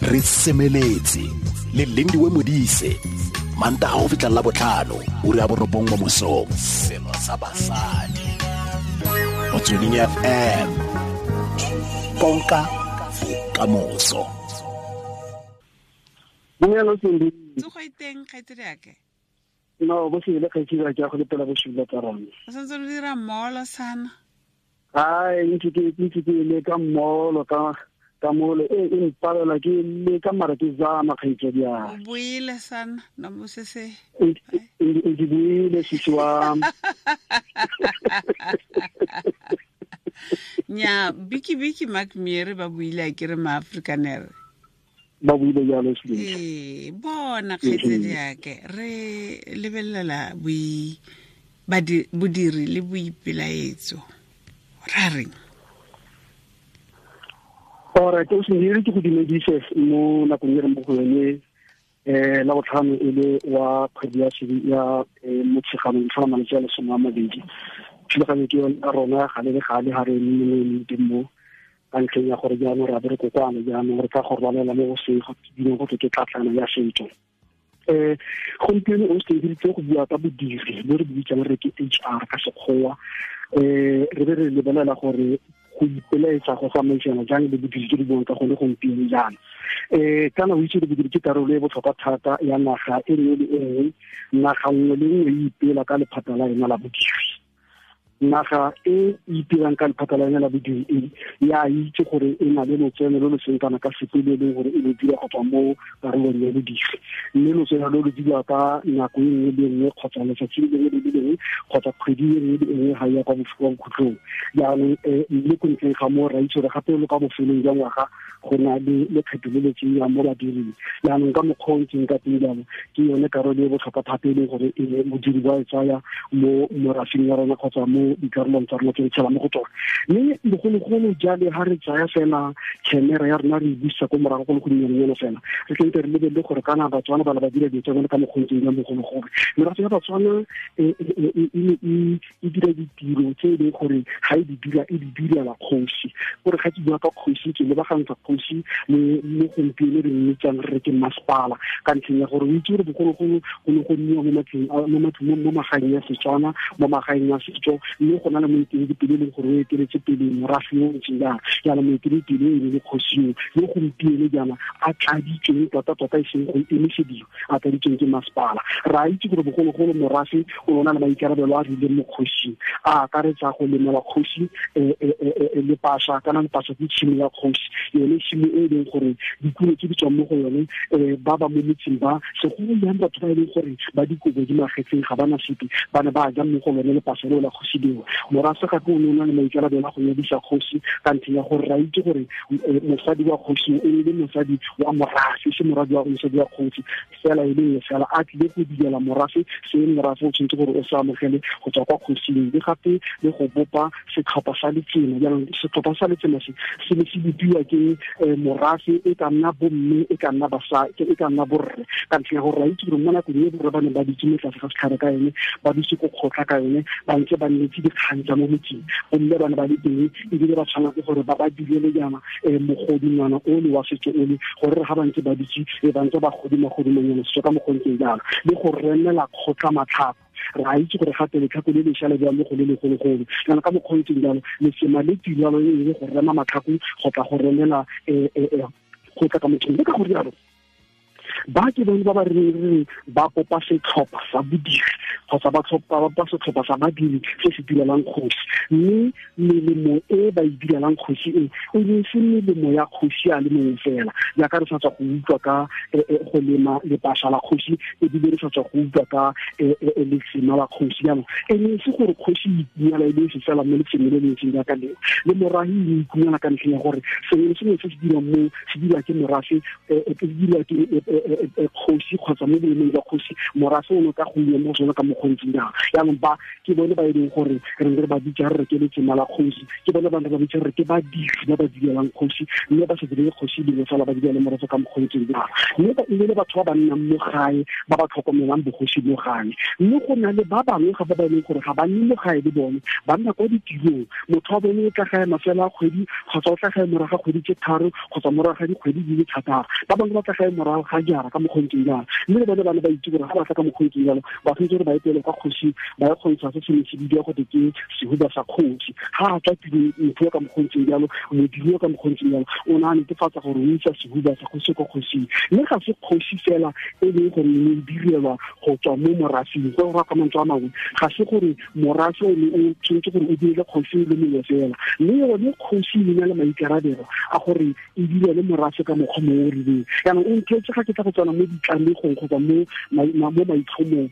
Re semeletse le Lindiwe Modise, Mantaga go fitlha la botlhano, ura ya 9 mo mosong. Selo sa basadi. Motsweding FM. Konka bokamoso. Dumela Cindy. Tsogo e teng kgaitsedi ake. No, bo se le kgaitsedi ake ya go lepela bosula tsa rona. O santse o dira molo sana. Ai, ntse ke le ka molo ka molo e mpalela ke le ka mara ke zama kgaitsedi ya. O buile sana no mo se se. Ntse buile sisi wa. Nya biki biki Mark Miere ba buile a kere ma Afrikaner. Ba buile jalo se. Ee, bona kgaitsedi yake re lebelela boi bodiri le boipelaetso. Ra reng? Alright, o se ke go dumedise mo nakong e re mo go yone la botlhano e le wa kgwedi ya ya Motsheganong tlhola malatsi a 20. Thulaganyo ke yone ya rona gale le gale ha re eme teng mo ka ntlheng ya gore jaanong re a be re kokoana, jaanong re tla go rwalela mo go se go bineng go ke tlatlana ya setso. Gompieno o se diritse go bua ka bodiri bo re bitsang re ke HR ka sekgowa, re be re lebelela gore go ipelaetsa go tsamaisana jang le bodiri tse di buang ka gone gompieno jaana. Kana o itse gore bodiri ke karolo e botlhokwa thata ya naga e nngwe le e nngwe. Naga nngwe le nngwe e ipela ka lephata la yona la bodiri. Naga e ipelang ka lephata la yona la bodiri e ya itse gore e na le lotseno lo lo seng kana ka sepe le leng gore e lo dira go tswa mo karolong ya bodiri, mme lotseno lo lo dira ka nako e nngwe le nngwe kgotsa letsatsi le lengwe le le lengwe kgotsa kgwedi e nngwe le nngwe ga ya kwa bokhutlong. Jaanong mme ko ntleng ga moo ra itse gore gape lo ka bofelong jwa ngwaga go na le lekgetho le le tseiwang mo badiring. Jaanong ka mokgwa o ntseng ka teng jalo ke yone karolo e botlhokwa thata e leng gore modiri ba e tsaya mo morafing ya rona kgotsa mo dikarolong tsa rona tse re tshelang mo go tsone. Mme bogologolo jale ha re tsaya fela camera ya rona re e busa ko morago go le go nnyanenyana fela, re tlente re lebelele gore kana Batswana ba le ba dira dilo tsa bone ka mokgwa o ntseng jang bogologolo. Merafe ya Batswana e dira ditiro tse e leng gore ga e di dira e di direla kgosi. Gore ga ke bua ka kgosi ke lebagantsha kgosi le mo gompieno re mmitsang re ke masepala, ka ntlheng ya gore o itse gore bogologolo go ne go nniwa mo matlong mo matlong mo magaeng ya Setswana, mo magaeng ya setso, mme go na le moeteledipele e leng gore o eteletse pele morafe yo o ntseng jang. Jaanong moeteledipele e le kgosi yo, yo gompieno jaana a tladitsweng tota-tota e seng go emisediwa, a tladitsweng ke masepala. Re a itse gore bogologolo morafe o na le maikarabelo a rileng mo kgosing, a akaretsa go lemela kgosi lepasa, kana lepasa ke tshimo ya kgosi, yone tshimo e leng gore dikuno tse di tswang mo go yone ba ba mo metseng ba segolo jang batho ba e leng gore ba dikobo di magetseng ga bana sepe ba ne ba ja mo go lone lepasa leo la kgosi leo. Morafe gape o ne o na le maikarabelo a go nyadisa kgosi ka ntlheng ya gore ra itse gore mosadi wa kgosi e le mosadi wa morafe, se moradi wa mosadi wa kgosi fela e le fela a tlile go direla morafe se morafe o tshwanetse gore o se amogele go tswa kwa kgosing, le gape le go bopa setlhopha sa letsema. Jaanong setlhopha sa letsema se se ne se bopiwa ke morafe e ka nna bomme, e ka nna basadi, e ka nna borre, ka ntlha ya gore ra itse gore mo nakong e borre ba ne ba dutse mo tlase ga setlhare ka yone, ba dutse ko kgotla ka yone, ba ntse ba nnetse dikgang tsa mo motseng, bomme ba ne ba le teng ebile ba tshwanetse gore ba ba direle jaana mogodingwana ole wa setso ole, gore ga ba ntse ba dutse ba ntse ba godima godimanyana setso ka mokgwa o ntseng jalo, le go remela kgotla matlhako. Re a itse gore gape letlhako le lešwa le bewa mo go le legologolo, jaanong ka mokgwa o ntseng jalo letsema le tirelo e le go rema matlhako go tla go remela go tla ka mothong. Le ka go rialo ba ke bone ba ba reng ba kopa setlhopha sa bodiri kgotsa ba tlhopha setlhopha sa badiri se se direlang kgosi, mme melemo e ba e direlang kgosi e e ne se melemo ya kgosi a le mongwe fela, jaaka re sa tswa go utlwa ka go lema lepasa la kgosi, ebile re sa tswa go utlwa ka letsema la kgosi. Jaanong e ne se gore kgosi e itumela e le se fela mo letsemeng le le ntseng jaaka leo, le morahi e itumela ka ntlheng ya gore sengwe le sengwe se se dirwang mo se dirwa ke morafe, se dirwa ke Kgosi kgotsa mo boemong jwa kgosi, morafe o ne ka go mo sone ka mokgontseng jang. Jaanong ba ke bone ba e leng gore re ne re ba bitsa re ke letsema la kgosi, ke bone ba ne ba bitsa re ke badiri ba ba direlang kgosi, mme ba sa direle kgosi dingwe fela, ba direle morafe ka mokgontseng jang. Mme ba e le batho ba ba nnang mo gae, ba ba tlhokomelang bogosi mo gae. Mme go na le ba bangwe gape ba e leng gore ga ba nne mo gae le bone, ba nna kwa ditirong. Motho wa bone o tla gae mafelo a kgwedi, kgotsa o tla gae morago ga kgwedi tse 3, kgotsa morago ga dikgwedi di le 6. Ba bangwe ba tla gae morago ga jara ka mokgontseng jalo. Mme le bone ba ne ba itse gore ga ba tla ka mokgontseng jalo, ba tshwanetse gore ba etele kwa kgosi, ba ye kgontsha se se ne se bidiwa gote ke sehuba sa kgosi. Ga a tswa tirong, motho yo ka mokgontseng jalo, modiri yo ka mokgontseng jalo, o ne a netefatsa gore o isa sehuba sa kgosi kwa kgosing. Mme ga se kgosi fela e leng gore e ne e direlwa go tswa mo morafeng. Go raya ka mantswe a mangwe, ga se gore morafe o ne o tshwanetse gore o direle kgosi le mongwe fela, mme yone kgosi e na le maikarabelo a gore e direle morafe ka mokgwa mongwe o rileng. Jaanong o nthetse ga ke tla go tsena mo ditlamegong kgotsa mo maitlhomong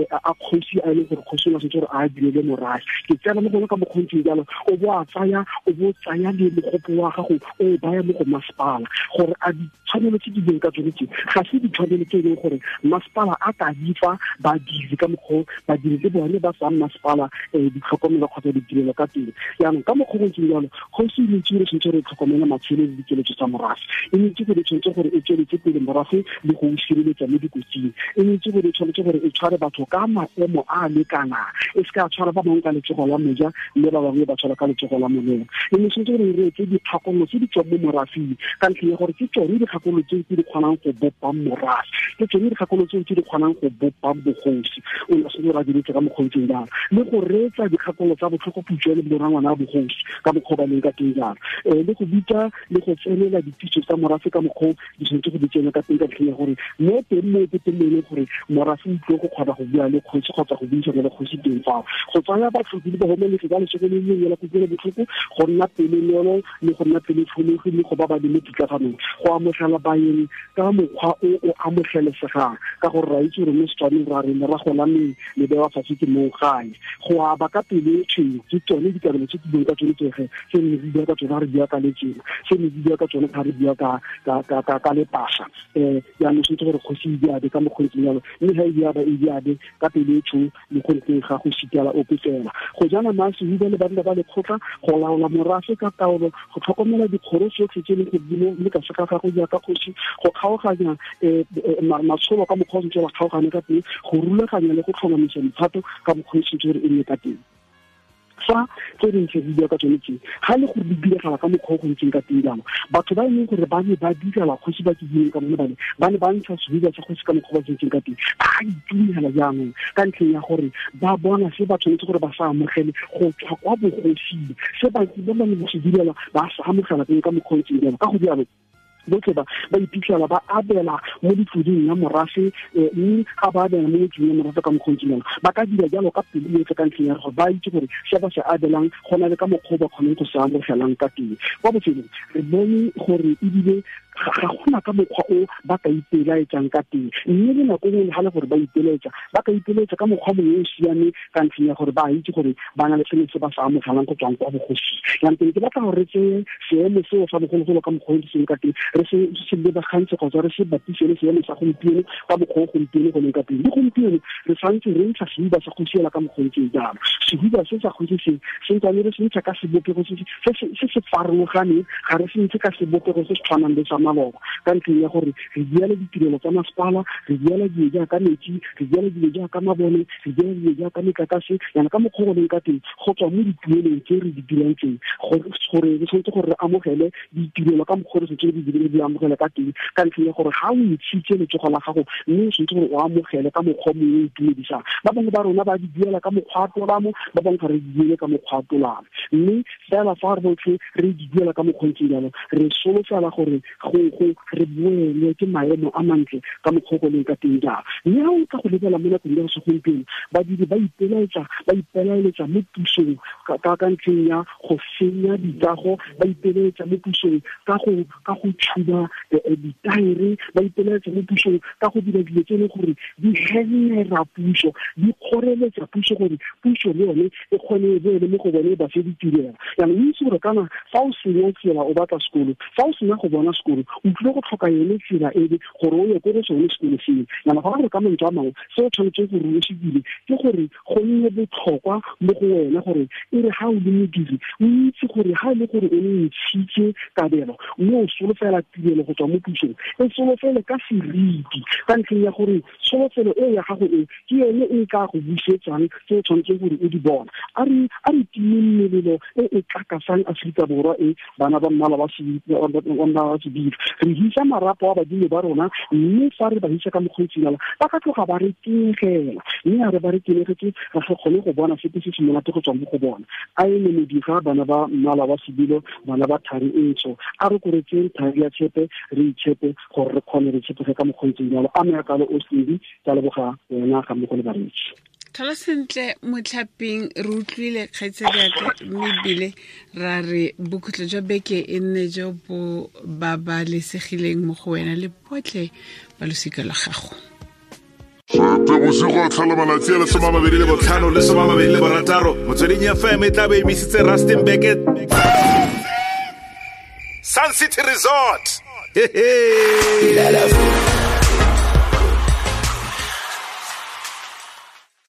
a kgosi a e leng gore kgosi o ne a tshwanetse gore a direle morafe, ke tsena mo gone ka mokgontseng jalo. O bo a tsaya, o bo tsaya le mogopo wa gago o o baya mo go masepala, gore a ditshwanelo tse di leng ka tsone tse ga se ditshwanelo tse e leng gore masepala a ka di fa badiri ka mokgwa badiri le bone ba fang masepala ditlhokomelo kgotsa ditirelo ka teng. Jaanong ka mokgwa go ntseng jalo, kgosi e itse gore tshwanetse gore e tlhokomele matshelo le dikeletso tsa morafe, e itse gore tshwanetse gore e tsweletse pele morafe le go o sireletsa mo dikotsing, e itse gore tshwanetse gore e tshware batho ka maemo a a lekanang, e se ka tshwara ba bangwe ka letsogo la moja mme ba bangwe ba tshwara ka letsogo la molema. E ne tshwanetse gore e reetse dikgakololo tse di tswang mo morafeng, ka ntlheng ya gore ke tsone dikgakololo tseo tse di kgonang go bopang morafe, ke tsone dikgakololo tseo tse di kgonang go bopang bogosi. O ne a tshwanetse gore a diretse ka mokgontseng jalo, le go reetsa dikgakololo tsa botlhokoputswa le borangwana a bogosi ka mokgwa ba leng ka teng jalo, le go bitsa le go tsenela dititso tsa morafe ka mokgwa di tshwanetse go di tsena ka teng, ka ntlheng ya gore mo teng mo ke teng mo e leng gore morafe o tlile go kgona go bua le kgosi kgotsa go buisana le kgosi teng fao. Go tsaya batlhoki le bahumanegi ba lesego le lengwe la kutlwelo botlhoko, go nna pelonolo le go nna pelotlhomogi le go ba ba le mo pitlaganong, go amogela baeng ka mokgwa o o amogelesegang, ka gore ra itse gore mo Setswaneng ra re lerago la meng le bewa fatshe ke mong gae. Go aba ka pelo e tshweu ke tsone dikabelo tse ke buang ka tsone tsege, tse ne re bua ka tsone ga re bua ka letsema, tse ne re bua ka tsone ga re bua ka lepasa. Jaanong tshwanetse gore kgosi e diabe ka mokgontseng jalo, mme ga e diaba e diabe ka pelo e tshweu le go ntleng ga go sitela ope fela. Go jana masehuba le banna ba lekgotla, go laola morafe ka taolo, go tlhokomela dikgoro tsotlhe tse e leng gore di mo le ka se ga gago jaaka kgosi, go kgaoganya matsholo ka mokgwa o sentse ba kgaogane ka teng, go rulaganya le go tlhomamisa mephato ka mokgwa o sentse gore e nne ka teng. Fa tse dintsi re bua ka tsone tse, ga le gore di diragala ka mokgwa o go ntseng ka teng jalo, batho ba e leng gore ba ne ba direla kgosi ba ke buileng ka bone bane, ba ne ba ntsha sehuba sa kgosi ka mokgwa ba ntseng ka teng, ba itumela jaanong ka ntlheng ya gore ba bona se ba tshwanetse gore ba sa amogele go tswa kwa bogosing, se ba ba ne ba se direla ba sa amogela teng ka mokgwa o ntseng jalo. Ka go jalo botlhe ba ba iphitlhela ba abela mo ditloding ya morafe, mme ga ba abela mo ditloding ya morafe ka mokgwa o ntseng jalo, ba ka dira jalo ka pelo yotlhe, ka ntlheng ya gore ba itse gore se ba se abelang go na le ka mokgwa o ba kgonang go se amogelang ka teng. Kwa bofelong re bone gore ebile ga gona ka mokgwa o ba ka ipelaetsang ka teng, mme le nako nngwe le ga le gore ba ipelaetsa, ba ka ipelaetsa ka mokgwa mongwe o siameng, ka ntlheng ya gore ba itse gore ba na le sengwe se ba sa amogelang go tswang kwa bogosing. Jaanong ke batla gore re tseye seemo seo sa bogologolo ka mokgwa o seng ka teng, re se lebagantse kgotsa re se bapise le seemo sa gompieno ka mokgwa o gompieno go leng ka teng. Le gompieno re santse re ntsha sehuba sa kgosi ela ka mokgwa o ntseng jalo. Sehuba se sa kgosi se se ntsane re se ntsha ka sebopego se se farologaneng, ga re se ntshe ka sebopego se se tshwanang le sa maloba, ka ntlheng ya gore re diela ditirelo tsa masepala, re diela dilo jaaka metsi, re diela dilo jaaka mabone, re diela dilo jaaka metlakase. Yana ka mokgwa go leng ka teng, go tswa mo dituelong tse re di dirang tseng, gore re tshwanetse gore re amogele ditirelo ka mokgwa re tshwanetse re di amogele ka teng, ka ntlheng ya gore ga o ntshitse letsogo la gago, mme o tshwanetse gore o amogele ka mokgwa mongwe o itumedisang. Ba bangwe ba rona ba di duela ka mokgwa wa tolamo, ba bangwe ga re di duele ka mokgwa wa tolamo, mme fela fa re botlhe re di duela ka mokgwa o ntseng jalo, re solofela gore go re boelwe ke maemo a mantle ka mokgwa o go leng ka teng jalo. Mme ga o tla go lebela mo nakong ya segompieno, badiri ba ipelaeletsa mo pusong ka ntlheng ya go senya dikago, ba ipelaetsa mo pusong ka go tshuba ditaere, ba ipelaetsa mo pusong ka go dira dilo tse e leng gore di hemera puso, di kgoreletsa puso gore puso le yone e kgone e boele mo go bone ba fe ditirelo. Jaanong o itse gore kana fa o senya tsela o batla sekolo, fa o sena go bona sekolo O tlile go tlhoka yone tsela ebe gore o ye ko go sone sekolo seo. Yana go gore ka mantswe a mangwe, se o tshwanetseng gore o se dire ke gore go nne botlhokwa mo go wena gore e re ga o le modiri, o itse gore ga e le gore o ne ntshitse kabelo mme o solofela tirelo go tswa mo pusong, e solofele ka seriti, ka ntlheng ya gore solofelo e ya gago e ke yone e ka go busetsang tse o tshwanetseng gore o di bona. A re timeng melelo e e tlakasang Aforika Borwa e, bana ba mmala wa sebilo. Re hisa marapo a badimo ba rona, mme fa re ba hisa ka mokgweetsinala, ba ka tloga ba re tenegela, mme a re ba re tenegetse, ra se kgone go bona sepe se se monate go tswa mo go bona. A e ne modiga, bana ba mmala wa sebilo, bana ba thari e ntsho, a re koretseng thari ya tshepe, re itshepe gore re kgone re tshepege ka mokgweetsing jalo. A me kalo o Cindy, ka leboga wena ga mmogo le bareetsi. Tlhola sentle motlhaping, re utlwile kgaitsadiaka, mme ebile ra re bokhutlo jwa beke e nne jo bo babalesegileng mo go wena le botlhe ba losika lwa gago. Bosigo tlhola malatsi a le 25 le 26, Motsweding FM e tla be emisitse Rustenburg Sun City Resort. Hehe.